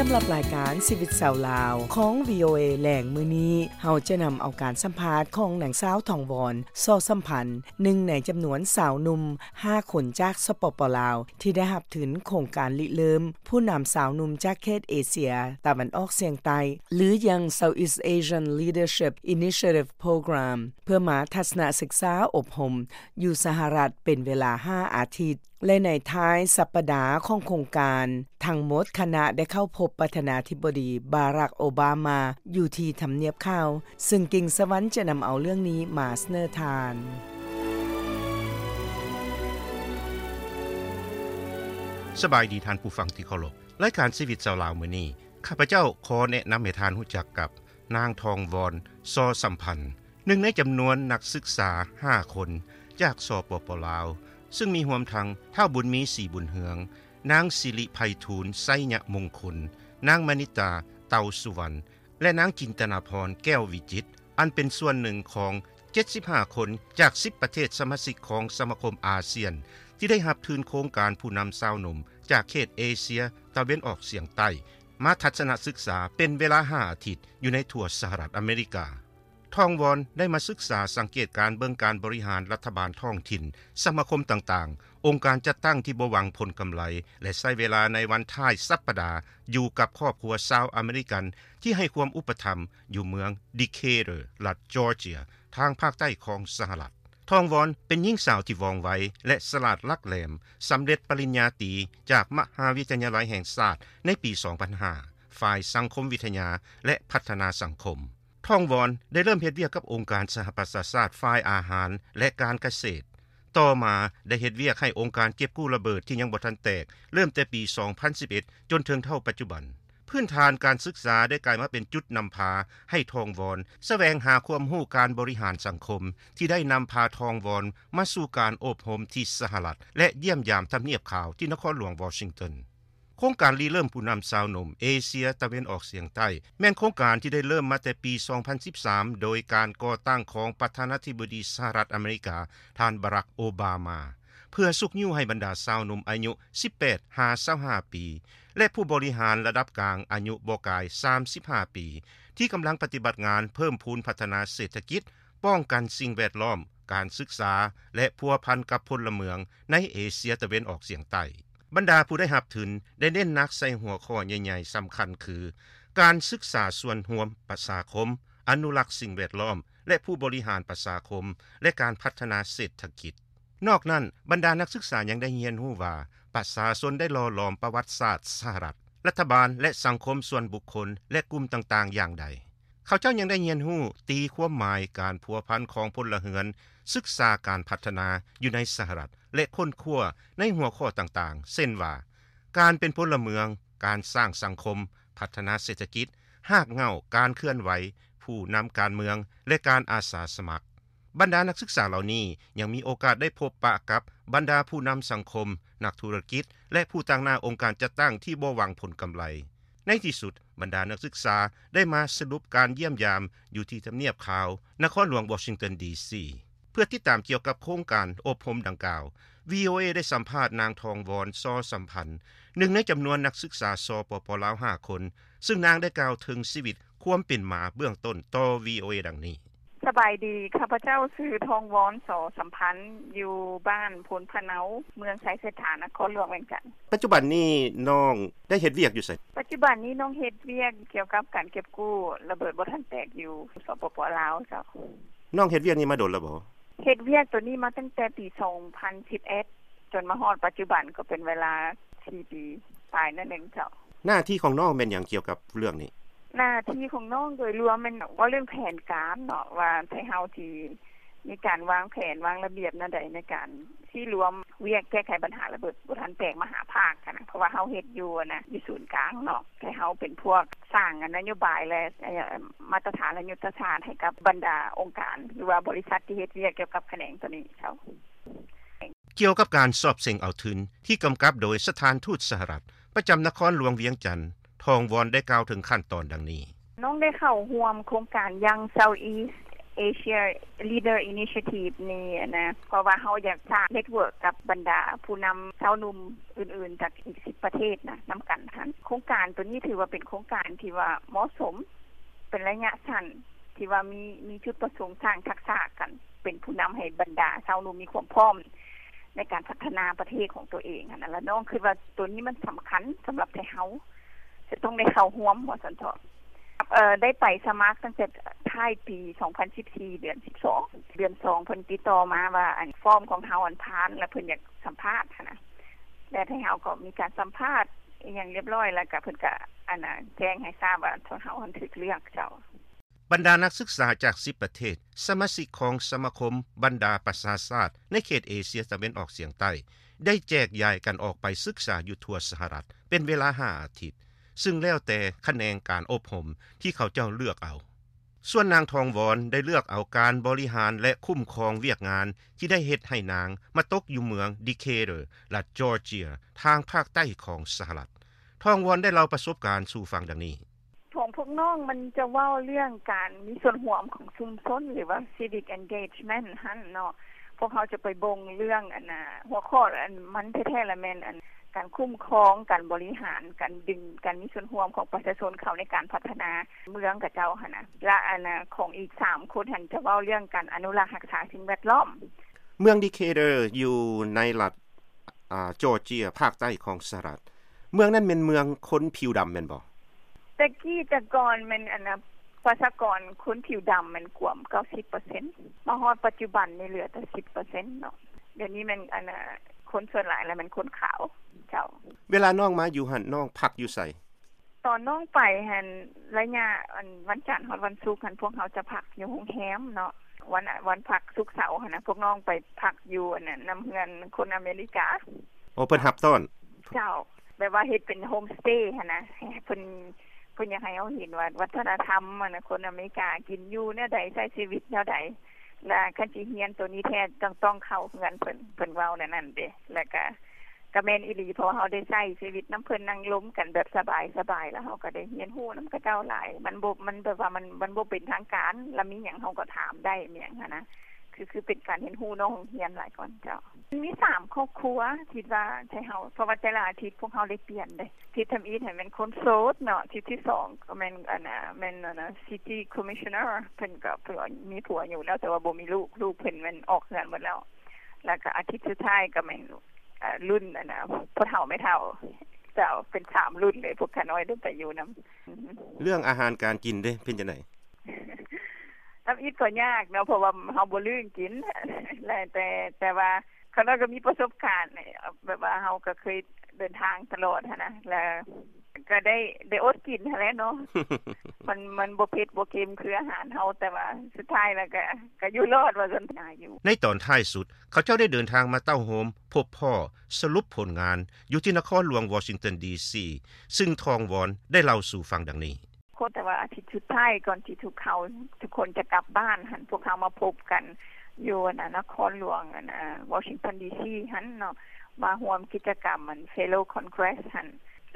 ສຳລັບລາຍການຊີວິດຊາວລາວຂອງ ວີໂອເອ ແລງມື້ນີ້, ເຮົາຈະນຳເອົາການສຳພາດຂອງນາງສາວ ທອງວອນ ສໍສຳພັນ, ໜຶ່ງໃນຈຳນວນຊາວໜຸ່ມຫ້າຄົນຈາກ ສປປ ລາວ ທີ່ໄດ້ຮັບທຶນໂຄງການລິເລີ່ມຜູ້ນຳຊາວໜຸ່ມຈາກເຂດເອເຊຍຕາເວັນອອກສຽງໃຕ້ ຫຼື Young Southeast Asian Leadership Initiative Program ເພື່ອມາທັດສະນະສຶກສາອົບຮົມຢູ່ສະຫະລັດເປັນເວລາຫ້າອາທິດ. ແລະ ໃນທ້າຍສັບປະດາຂອງໂຄງການ, ທັງໝົດຄະນະໄດ້ເຂົ້າພົບປະທານາທິບໍດີ ບາຣັກ ໂອບາມາ ຢູ່ທີ່ທຳນຽບຂາວ, ຊຶ່ງກິ່ງສະຫວັນຈະນຳເອົາເລື່ອງນີ້ມາສະເໜີທ່ານ. ສະບາຍດີທ່ານຜູ້ຟັງທີ່ເຄົາລົບ. ລາຍການຊີວິດຊາວລາວມື້ນີ້, ຂ້າພະເຈົ້າຂໍແນະນຳໃຫ້ທ່ານຮູ້ຈັກກັບ ນາງ ທອງວອນ ສໍສຳພັນ, ໜຶ່ງໃນຈຳນວນນັກສຶກສາຫ້າຄົນຈາກ ສປປ ລາວ, ຊຶ່ງມີຮວມທັງ ທ້າວ ບຸນມີ ສີບຸນເຮືອງ, ນາງ ສິລິໄພທູນ ໄຊຍະມົງຄຸນ, ນາງ ມະນິດຕາ ເຕົາສຸວັນ ແລະ ນາງ ຈິນຕະນາພອນ ແກ້ວວິຈິດ, ອັນເປັນສ່ວນໜຶ່ງຂອງເຈັດສິບຫ້າຄົນຈາກສິບປະເທດສະມາຊິກຂອງສະມາຄົມອາຊຽນ ທີ່ໄດ້ຮັບທຶນໂຄງການຜູ້ນຳຊາວໜຸ່ມຈາກເຂດເອເຊຍຕາເວັນອອກສຽງໃຕ້ ມາທັດສະນະສຶກສາເປັນເວລາຫ້າອາທິດ ຢູ່ໃນທົ່ວສະຫະລັດອາເມລິກາ. ທອງວອນໄດ້ມາສຶກສາສັງເກດການເບິ່ງການບໍລິຫານລັດຖະບານທ້ອງຖິ່ນ, ສະມາຄົມຕ່າງໆ, ອົງການຈັດຕັ້ງທີ່ບໍ່ຫວັງຜົນກຳໄລ ແລະ ໃຊ້ເວລາໃນວັນທ້າຍສັບປະດາຢູ່ກັບຄອບຄົວຊາວອາເມລິກັນທີ່ໃຫ້ຄວາມອຸປະຖຳຢູ່ເມືອງ ດີເຄເຕີ ລັດຈອເຈຍ ທາງພາກໃຕ້ຂອງສະຫະລັດ. ທອງວອນເປັນຍິງສາວທີ່ວ່ອງໄວ ແລະ ສະຫຼາດຫຼັກແຫຼມ, ສຳເລັດປະລິນຍາຕີຈາກມະຫາວິທະຍາໄລແຫ່ງຊາດໃນປີສອງພັນຫ້າ ຝ່າຍສັງຄົມວິທະຍາ ແລະ ພັດທະນາສັງຄົມ. ທອງວອນໄດ້ເລີ່ມເຮັດວຽກກັບອົງການສະຫະປະຊາຊາດຝ່າຍອາຫານ ແລະ ການກະເສດ. ຕໍ່ມາໄດ້ເຮັດວຽກໃຫ້ອົງການເກັບກູ້ລະເບີດທີ່ຍັງບໍ່ທັນແຕກ ເລີ່ມແຕ່ປີສອງພັນສິບເອັດ ຈົນເຖິງເທົ່າປັດຈຸບັນ. ພື້ນຖານການສຶກສາໄດ້ກາຍມາເປັນຈຸດນຳພາໃຫ້ທອງວອນສະແຫວງຫາຄວາມຮູ້ການບໍລິຫານສັງຄົມ ທີ່ໄດ້ນຳພາທອງວອນມາສູ່ການອົບຮົມທີ່ສະຫະລັດ ແລະ ຢ້ຽມຢາມທຳນຽບຂາວທີ່ນະຄອນຫຼວງວໍຊິງຕັນ. ໂຄງການລິເລີ່ມຜູ້ນຳຊາວໜຸ່ມເອເຊຍຕາເວັນອອກສຽງໃຕ້ ແມ່ນໂຄງການທີ່ໄດ້ເລີ່ມມາແຕ່ປີສອງພັນສິບສາມ ໂດຍການກໍ່ຕັ້ງຂອງປະທານາທິບໍດີສະຫະລັດອາເມລິກາ ທ່ານ ບາຣັກ ໂອບາມາ ເພື່ອຊຸກຍູ້ໃຫ້ບັນດາຊາວໜຸ່ມອາຍຸສິບແປດຫາຊາວຫ້າປີ ແລະ ຜູ້ບໍລິຫານລະດັບກາງອາຍຸບໍ່ກາຍສາມສິບຫ້າປີ ທີ່ກຳລັງປະຕິບັດງານເພີ່ມພູນພັດທະນາເສດຖະກິດ, ປ້ອງກັນສິ່ງແວດລ້ອມ, ການສຶກສາ ແລະ ພົວພັນກັບພົນລະເມືອງໃນເອເຊຍຕາເວັນອອກສຽງໃຕ້. ບັນດາຜູ້ໄດ້ຮັບທຶນໄດ້ເນັ້ນໜັກໃສ່ຫົວຂໍ້ໃຫຍ່ໆສຳຄັນຄື ການສຶກສາສ່ວນຮວມປະຊາຄົມ, ອະນຸລັກສິ່ງແວດລ້ອມ ແລະ ຜູ້ບໍລິຫານປະຊາຄົມ ແລະ ການພັດທະນາເສດຖະກິດ. ນອກນັ້ນ, ບັນດານັກສຶກສາຍັງໄດ້ຮຽນຮູ້ວ່າ ປະຊາຊົນໄດ້ຫຼໍ່ຫຼອມປະຫວັດສາດສະຫະລັດ, ລັດຖະບານ ແລະ ສັງຄົມສ່ວນບຸກຄົນ ແລະ ກຸ່ມຕ່າງໆຢ່າງໃດ. ເຂົາເຈົ້າຍັງໄດ້ຮຽນຮູ້ຕີຄວາມໝາຍການພົວພັນຂອງພົນລະເຮືອນ, ສຶກສາການພັດທະນາຢູ່ໃນສະຫະລັດ ແລະ ຄົ້ນຄວ້າໃນຫົວຂໍ້ຕ່າງໆ ເຊັ່ນວ່າ ການເປັນພົນລະເມືອງ, ການສ້າງສັງຄົມ, ພັດທະນາເສດຖະກິດ, ຮາກເຫງົ້າການເຄື່ອນໄຫວ, ຜູ້ນຳການເມືອງ ແລະ ການອາສາສະໝັກ. ບັນດານັກສຶກສາເຫຼົ່ານີ້ຍັງມີໂອກາດໄດ້ພົບປະກັບບັນດາຜູ້ນຳສັງຄົມ, ນັກທຸລະກິດ ແລະ ຜູ້ຕາງໜ້າອົງການຈັດຕັ້ງທີ່ບໍ່ຫວັງຜົນກຳໄລ. ໃນທີ່ສຸດ, ບັນດານັກສຶກສາໄດ້ມາສະຫຼຸບການຢ້ຽມຢາມຢູ່ທີ່ທຳນຽບຂາວ, ນະຄອນຫຼວງວໍຊິງຕັນ ດີຊີ. ເພື່ອຕິດຕາມກ່ຽວກັບໂຄງການອົບຮົມດັ່ງກ່າວ, ວີໂອເອ ໄດ້ສຳພາດນາງ ທອງວອນ ຊໍສຳພັນ, ໜຶ່ງໃນຈຳນວນນັກສຶກສາ ສປປ ລາວ ຫ້າຄົນ, ຊຶ່ງນາງໄດ້ກ່າວເຖິງຊີວິດຄວາມເປັນມາເບື້ອງຕົ້ນຕໍ່ ວີໂອເອ ດັ່ງນີ້. ສະບາຍດີ, ຂ້າພະເຈົ້າຊື່ ທອງວອນ ຊໍສຳພັນ, ຢູ່ບ້ານໂພນພະເນົາ, ເມືອງໄຊເສດຖາ, ນະຄອນຫຼວງວຽງຈັນ. ປັດຈຸບັນນີ້ນ້ອງໄດ້ເຮັດວຽກຢູ່ໃສ? ປັດຈຸບັນນີ້ນ້ອງເຮັດວຽກກ່ຽວກັບການເກັບກູ້ລະເບີດບໍ່ທັນແຕກຢູ່ ສປປ ລາວ ເຈົ້າ. ນ້ອງເຮັດວຽກນີ້ມາດົນແລ້ວບໍ່? ເຮັດວຽກໂຕນີ້ມາຕັ້ງແຕ່ປີສອງພັນສິບເອັດ ຈົນມາຮອດປັດຈຸບັນກໍເປັນເວລາສີ່ປີປາຍໜ້ອຍໜຶ່ງເຈົ້າ. ໜ້າທີ່ຂອງນ້ອງແມ່ນຫຍັງກ່ຽວກັບເລື່ອງນີ້? ໜ້າທີ່ຂອງນ້ອງໂດຍລວມແມ່ນເວົ້າເລື່ອງແຜນການເນາະ ວ່າໄທເຮົາຊິມີການວາງແຜນວາງລະບຽບແນວໃດໃນການຊິລວມວຽກແກ້ໄຂບັນຫາລະເບີດບໍ່ທັນແຕກມະຫາພາກຫັ້ນນະ ເພາະວ່າເຮົາເຮັດຢູ່ຫັ້ນນະ ຢູ່ສູນກາງເນາະ ແຕ່ເຮົາເປັນພວກສ້າງນະໂຍບາຍ ແລະ ມາດຕະຖານ ແລະ ຍຸດທະສາດໃຫ້ກັບບັນດາອົງການ ຫຼືວ່າບໍລິສັດທີ່ເຮັດວຽກກ່ຽວກັບຂະແໜງໂຕນີ້ເຈົ້າ. ກ່ຽວກັບການສອບເສັງເອົາທຶນທີ່ກຳກັບໂດຍສະຖານທູດສະຫະລັດປະຈຳນະຄອນຫຼວງວຽງຈັນ, ທອງວອນໄດ້ກ່າວເຖິງຂັ້ນຕອນດັ່ງນີ້. ນ້ອງໄດ້ເຂົ້າຮ່ວມໂຄງການ Young Southeast Asia Leader Initiative ນີ້นะ เพราะว่าเฮาอยากสร้างเน็ตเวิร์กกับบรรดาผู้นำชาวหนุ่มอื่นๆ จากอีกสิบประเทศนะ นำกันหั้น โครงการตัวนี้ถือว่าเป็นโครงการที่ว่าเหมาะสม เป็นระยะสั้น ที่ว่ามี มีจุดประสงค์สร้างทักษะกัน เป็นผู้นำให้บรรดาชาวหนุ่มมีความพร้อมในการพัฒนาประเทศของตัวเองหั้นนะ แล้วน้องคิดว่าตัวนี้มันสำคัญสำหรับไทยเฮา จะต้องได้เข้าร่วม ว่าซั่นเถาะ เอ่อ ได้ไปสมัครตั้งแต่ท้ายปีสองพันสิบสี่ เดือนสิบสอง เดือนสอง เพิ่นติดต่อมาว่า อัน ฟอร์มของเฮาอันผ่าน แล้วเพิ่นอยากสัมภาษณ์หั้นนะ แล้วไทยเฮาก็มีการสัมภาษณ์อีหยังเรียบร้อย แล้วก็เพิ่นก็ อันน่ะ แจ้งให้ทราบว่าเฮาหั้นถูกเลือกเจ้า. บรรดานักศึกษาจากสิบประเทศ สมาชิกของสมาคมบรรดาประชาชาติในเขตเอเชียตะเว็นออกเฉียงใต้ ได้แจกย้ายกันออกไปศึกษาอยู่ทั่วสหรัฐ เป็นเวลาห้าอาทิตย์ ซึ่งแล้วแต่ขะแหนงการอบรมที่เขาเจ้าเลือกเอา ส่วนนางทองวอนได้เลือกเอาการบริหารและคุ้มครองเวียกงานที่ได้เฮ็ดให้นางมาตกอยู่เมืองดีเคเตอร์ รัฐจอร์เจีย ทางภาคใต้ของสหรัฐ ทองวอนได้เล่าประสบการณ์สู่ฟังดังนี้ ของพวกน้องมันจะเว้าเรื่องการมีส่วนร่วมของชุมชน หรือว่า civic engagement หั่นเนาะ พวกเขาจะไปเบิ่งเรื่องอันน่ะ หัวข้ออันมันแท้ๆ ละแม่นอันการคุ้มครอง การบริหาร การดึง การมีส่วนร่วมของประชาชนเข้าในการพัฒนาเมืองเขาเจ้าหั่นนะ และอันน่ะ ของอีกสามคนหั่นจะเว้าเรื่องการอนุรักษ์รักษาสิ่งแวดล้อม เมืองดีเคเตอร์อยู่ในรัฐ อ่า จอร์เจีย ภาคใต้ของสหรัฐ เมืองนั้นแม่นเมืองคนผิวดำแม่นบ่? แต่กี้แต่ก่อนแม่นอันน่ะ ประชากรคนผิวดำแม่นกวมเก้าสิบเปอร์เซ็นต์ มาฮอดปัจจุบันนี่เหลือแต่สิบเปอร์เซ็นต์เนาะ เดี๋ยวนี้แม่นอันน่ะ คนส่วนหลายแล้วแม่นคนขาวเจ้า. เวลาน้องมาอยู่หั่น น้องพักอยู่ไส? ตอนน้องไปหั่น ระยะอันวันจันทร์ฮอดวันศุกร์หั่น พวกเฮาจะพักอยู่โรงแรมเนาะ วัน วันพักศุกร์เสาร์หั่นนะ พวกน้องไปพักอยู่อันนั้นนำเฮือนคนอเมริกา. โอ้ เพิ่นรับต้อน เจ้า แบบว่าเฮ็ดเป็นโฮมสเตย์หั่นนะ เพิ่น เพิ่นอยากให้เฮาเห็นว่าวัฒนธรรมหั่นนะ คนอเมริกากินอยู่แนวใด ใช้ชีวิตแนวใด และคันสิเรียนตัวนี้แท้ต้อง ต้องเข้าเฮือนเพิ่น เพิ่นเว้าแนวนั้นเด้ แล้วก็ ก็แม่นอีหลี เพราะว่าเฮาได้ใช้ชีวิตนำเพิ่น นั่งลมกันแบบสบายๆ แล้วเฮาก็ได้เรียนรู้นำเขาเจ้าหลาย มันบ่ มันแบบว่ามัน มันบ่เป็นทางการ แล้วมีหยังเฮาก็ถามได้ มีหยังหั้นนะ คือ คือเป็นการเรียนรู้นอกโรงเรียนหลายกว่าเจ้า. มีสามครอบครัว คิดว่าไทเฮา เพราะว่าแต่ละอาทิตย์พวกเฮาได้เปลี่ยนเด้ อาทิตย์ทำอิฐหั้นแม่นคนโสดเนาะ อาทิตย์ที่สองก็แม่น อันน่ะ แม่น อันน่ะ city commissioner เพิ่นก็ เพิ่นก็มีผัวอยู่แล้ว แต่ว่าบ่มีลูก ลูกเพิ่นแม่นออกเฮือนหมดแล้ว แล้วก็อาทิตย์สุดท้ายก็แม่น อ่า รุ่นอันน่ะ พ่อเฒ่าแม่เฒ่า เจ้า เป็นสามรุ่นเลย พวกข้าน้อยได้ไปอยู่นำ. เรื่องอาหารการกินเด้ เป็นจั่งใด? ทำอิฐก็ยากเนาะ เพราะว่าเฮาบ่ลืมกิน และ แต่ แต่ว่าข้าน้อยก็มีประสบการณ์ แบบว่าเฮาก็เคยเดินทางตลอดหั้นนะ แล้วก็ได้ ได้อดกินหั้นแหละเนาะ มัน มันบ่เผ็ดบ่เค็มคืออาหารเฮา แต่ว่าสุดท้ายแล้วก็ ก็อยู่รอดว่าซั่น หาอยู่. ในตอนท้ายสุด เขาเจ้าได้เดินทางมาเต้าโฮมพบพ้อสรุปผลงานอยู่ที่นครหลวงวอชิงตันดีซี ซึ่งทองวอนได้เล่าสู่ฟังดังนี้. แต่ว่าอาทิตย์สุดท้ายก่อนที่ทุกเขา ทุกคนจะกลับบ้านหั้น พวกเขามาพบกันอยู่อันน่ะ นครหลวงอันน่ะ วอชิงตันดีซีหั้นเนาะ มาร่วมกิจกรรมอัน Fellow Congress หั้น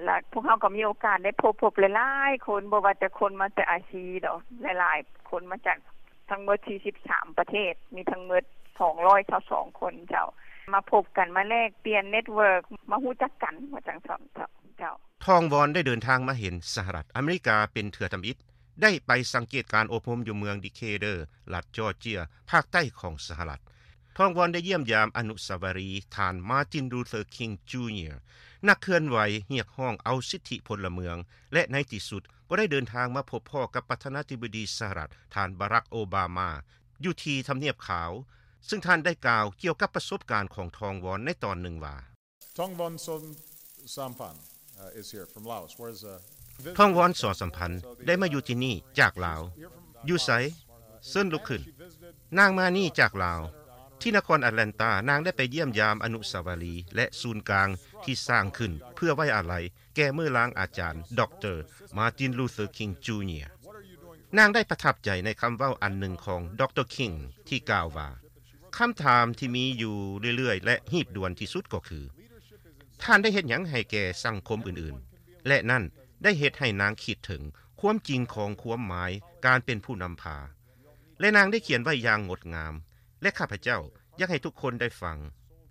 แล้วพวกเขาก็มีโอกาสได้พบ พบหลายๆ คน บ่ว่าแต่คนมาแต่อาซีดอก หลายๆ คนมาจาก ทั้งหมดสี่สิบสามประเทศ มีทั้งหมดสองร้อยซาวสองคนเจ้า มาพบกัน มาแลกเปลี่ยน network มาฮู้จักกัน ว่าจั่งซั้นเจ้า เจ้า. ทองวอนได้เดินทางมาเห็นสหรัฐอเมริกาเป็นเทื่อทำอิฐ ได้ไปสังเกตการอบรมอยู่เมืองดีเคเตอร์ รัฐจอร์เจีย ภาคใต้ของสหรัฐ ทองวอนได้เยี่ยมยามอนุสาวรีย์ท่านมาร์ติน ลูเธอร์ คิง จูเนียร์ นักเคลื่อนไหวเรียกร้องเอาสิทธิพลเมือง และในที่สุดก็ได้เดินทางมาพบพ้อกับประธานาธิบดีสหรัฐ ท่านบารัก โอบามา อยู่ที่ทำเนียบขาว ซึ่งท่านได้กล่าวเกี่ยวกับประสบการณ์ของทองวอนในตอนหนึ่งว่า Thongvon Somsamphan, uh, is here from Laos. Where's, uh, ทองวอน สอสัมพันธ์ ได้มาอยู่ที่นี่จากลาว อยู่ไส เชิญลุกขึ้น นางมานี่จากลาว ที่นครแอตแลนตา นางได้ไปเยี่ยมยามอนุสาวรีย์และศูนย์กลางที่สร้างขึ้นเพื่อไว้อาลัยแก่มื้อลางอาจารย์ ด็อกเตอร์ มาร์ติน ลูเธอร์ คิง จูเนียร์ นางได้ประทับใจในคำเว้าอันหนึ่งของ ด็อกเตอร์ คิง ที่กล่าวว่า คำถามที่มีอยู่เรื่อยๆ และรีบด่วนที่สุดก็คือ ท่านได้เฮ็ดหยังให้แก่สังคมอื่นๆ และนั่นได้เฮ็ดให้นางคิดถึงความจริงของความหมายการเป็นผู้นำพา ແລະນາງໄດ້ຂຽນໄວ້ຢ່າງງົດງາມ ແລະຂ້າພະເຈົ້າຢາກໃຫ້ທຸກຄົນໄດ້ຟັງ.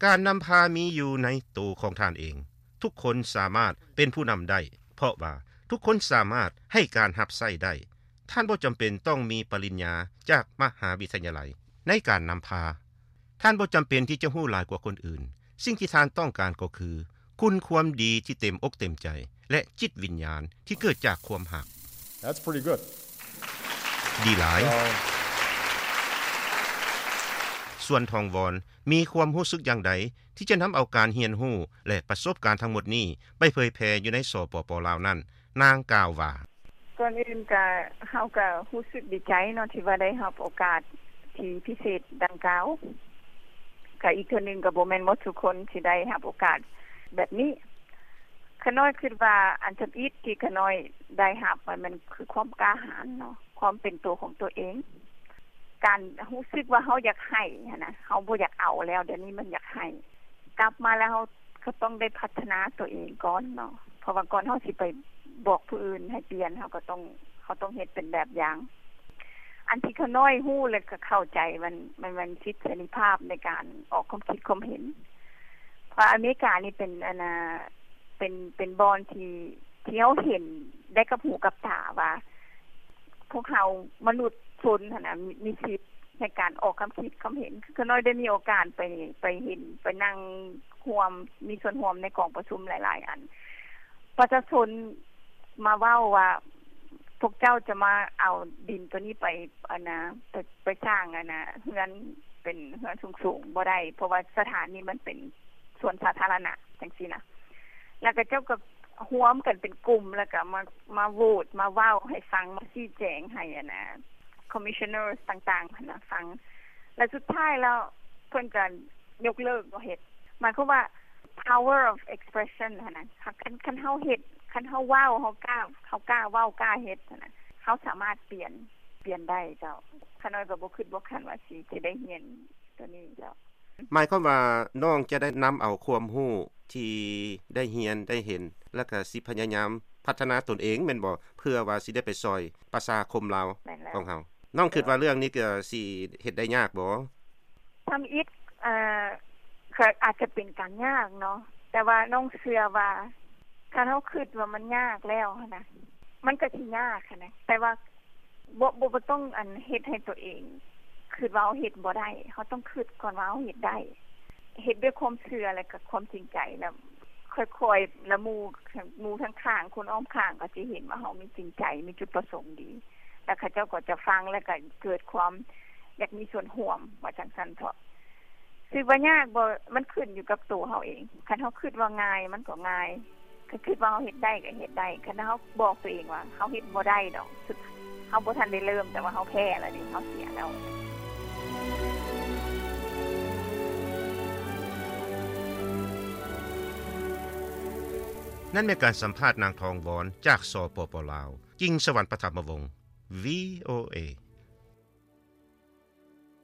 ການນຳພາມີຢູ່ໃນໂຕຂອງທ່ານເອງ. ທຸກຄົນສາມາດເປັນຜູ້ນຳໄດ້ ເພາະວ່າທຸກຄົນສາມາດໃຫ້ການຮັບໃຊ້ໄດ້. ທ່ານບໍ່ຈຳເປັນຕ້ອງມີປະລິນຍາຈາກມະຫາວິທະຍາໄລໃນການນຳພາ. ທ່ານບໍ່ຈຳເປັນທີ່ຈະຮູ້ຫຼາຍກວ່າຄົນອື່ນ. ສິ່ງທີ່ທ່ານຕ້ອງການກໍຄື ຄຸນຄວາມດີທີ່ເຕັມອົກເຕັມໃຈ ແລະຈິດວິນຍານທີ່ເກີດຈາກຄວາມຮັກ. That's pretty good. ດີຫຼາຍ. ສ່ວນທອງວອນມີຄວາມຮູ້ສຶກຢ່າງໃດ ທີ່ຈະນຳເອົາການຮຽນຮູ້ ແລະປະສົບການທັງໝົດນີ້ ໄປເຜີຍແຜ່ຢູ່ໃນ ສປປ ລາວ ນັ້ນ? ນາງກ່າວວ່າ: ກ່ອນອື່ນກະ ເຮົາກະຮູ້ສຶກດີໃຈເນາະ ທີ່ວ່າໄດ້ຮັບໂອກາດທີ່ພິເສດດັ່ງກ່າວ. ກະອີກເທື່ອໜຶ່ງ ກະບໍ່ແມ່ນໝົດທຸກຄົນທີ່ໄດ້ຮັບໂອກາດແບບນີ້. ຂ້ານ້ອຍຄິດວ່າອັນທຳອິດທີ່ຂ້ານ້ອຍໄດ້ຮັບ ມັນ ມັນຄືຄວາມກ້າຫານເນາະ, ຄວາມເປັນໂຕຂອງຕົວເອງ, ການຮູ້ສຶກວ່າເຮົາຢາກໃຫ້ຫັ້ນນະ, ເຮົາບໍ່ຢາກເອົາແລ້ວ, ດຽວນີ້ມັນຢາກໃຫ້. ກັບມາແລ້ວເຮົາກໍຕ້ອງໄດ້ພັດທະນາຕົວເອງກ່ອນເນາະ, ເພາະວ່າກ່ອນເຮົາຊິໄປບອກຜູ້ອື່ນໃຫ້ປ່ຽນ, ເຮົາກໍຕ້ອງ ເຮົາຕ້ອງເຮັດເປັນແບບຢ່າງ. ອັນທີ່ຂ້ານ້ອຍຮູ້ ແລະກໍເຂົ້າໃຈ ມັນ ມັນ ມັນສິດເສລີພາບໃນການອອກຄວາມຄິດຄວາມເຫັນ. ເພາະອາເມລິການີ້ເປັນ ອັນນ່າ ເປັນ ເປັນບ່ອນທີ່ ທີ່ເຮົາເຫັນໄດ້ກັບຫູກັບຕາວ່າ ພວກເຮົາມະນຸດຊົນຫັ້ນນະ ມີ ມີສິດໃນການອອກຄຳຄິດຄຳເຫັນ. ຄືຂ້ານ້ອຍໄດ້ມີໂອກາດໄປ ໄປເຫັນ ໄປນັ່ງຮ່ວມ ມີສ່ວນຮ່ວມໃນກອງປະຊຸມຫຼາຍໆອັນ. ປະຊາຊົນມາເວົ້າວ່າ ພວກເຈົ້າຈະມາເອົາດິນໂຕນີ້ໄປ ອັນນ່າ ໄປ ໄປສ້າງ ອັນນ່າ ເຮືອນ ເປັນເຮືອນສູງໆບໍ່ໄດ້ ເພາະວ່າສະຖານນີ້ມັນເປັນ ສວນສາທາລະນະ ຈັ່ງຊີ້ນະ. ແລ້ວກໍເຈົ້າກໍຮວມກັນເປັນກຸ່ມ ແລ້ວກໍມາ ມາໂຫວດ ມາເວົ້າໃຫ້ຟັງ ມາຊີ້ແຈງໃຫ້ ອັນນ່າ commissioners ຕ່າງໆຫັ້ນນະ ຟັງ. ແລ້ວສຸດທ້າຍແລ້ວເພິ່ນກໍຍົກເລີກບໍ່ເຮັດ. ໝາຍຄວາມວ່າ power of expression ຫັ້ນນະ. ຄັນ ຄັນເຮົາເຮັດ ຄັນເຮົາເວົ້າ ເຮົາກ້າ ເຮົາກ້າເວົ້າ ກ້າເຮັດຫັ້ນນະ, ເຮົາສາມາດປ່ຽນ ປ່ຽນໄດ້ເຈົ້າ. ຂ້ານ້ອຍກໍບໍ່ຄິດບໍ່ຝັນວ່າຊິ ຊິໄດ້ຮຽນ ຕົວນີ້ເຈົ້າ. ໝາຍຄວາມວ່ານ້ອງຈະໄດ້ນຳເອົາຄວາມຮູ້ທີ່ໄດ້ຮຽນໄດ້ເຫັນ ແລ້ວກະຊິພະຍາຍາມພັດທະນາຕົນເອງແມ່ນບໍ່? ເພື່ອວ່າຊິໄດ້ໄປຊ່ອຍປະຊາຄົມລາວ ແມ່ນແລ້ວ ຂອງເຮົາ. ນ້ອງຄິດວ່າເລື່ອງນີ້ກະຊິເຮັດໄດ້ຍາກບໍ່? ທຳອິດ ເອີ ກະອາດຈະເປັນການຍາກເນາະ, ແຕ່ວ່ານ້ອງເຊື່ອວ່າ ຄັນເຮົາຄິດວ່າມັນຍາກແລ້ວຫັ້ນນະ ມັນກະຊິຍາກຫັ້ນນະ, ແຕ່ວ່າ ບໍ່ ບໍ່ ບໍ່ຕ້ອງ ອັນ ເຮັດໃຫ້ຕົວເອງຄິດວ່າເຮົາເຮັດບໍ່ໄດ້. ເຮົາຕ້ອງຄິດກ່ອນວ່າເຮົາເຮັດໄດ້. ເຮັດດ້ວຍຄວາມເຊື່ອ ແລະກະຄວາມຈິງໃຈ, ແລ້ວຄ່ອຍໆ ແລ້ວໝູ່ ໝູ່ທາງຂ້າງ ຄົນອ້ອມຂ້າງກໍຊິເຫັນວ່າເຮົາມີຈິງໃຈ ມີຈຸດປະສົງດີ, ແລ້ວເຂົາເຈົ້າກໍຈະຟັງ ແລ້ວກະເກີດຄວາມຢາກມີສ່ວນຮ່ວມ ວ່າຈັ່ງຊັ້ນເຖາະ. ຊິວ່າຍາກບໍ່? ມັນຂຶ້ນຢູ່ກັບໂຕເຮົາເອງ. ຄັນເຮົາຄິດວ່າງ່າຍ ມັນກໍງ່າຍ. ຄັນຄິດວ່າເຮົາເຮັດໄດ້ກໍເຮັດໄດ້. ຄັນເຮົາບອກຕົວເອງວ່າເຮົາເຮັດບໍ່ໄດ້ດອກ, ເຮົາບໍ່ທັນໄດ້ເລີ່ມ, ແຕ່ວ່າເຮົາແພ້ແລ້ວເດ, ເຮົາເສຍແລ້ວ. ນັ້ນແມ່ນການສຳພາດນາງ ທອງວອນ ຈາກ ສປປ ລາວ. ຈິງສະຫວັນ ປະຖະມະວົງ ວີໂອເອ.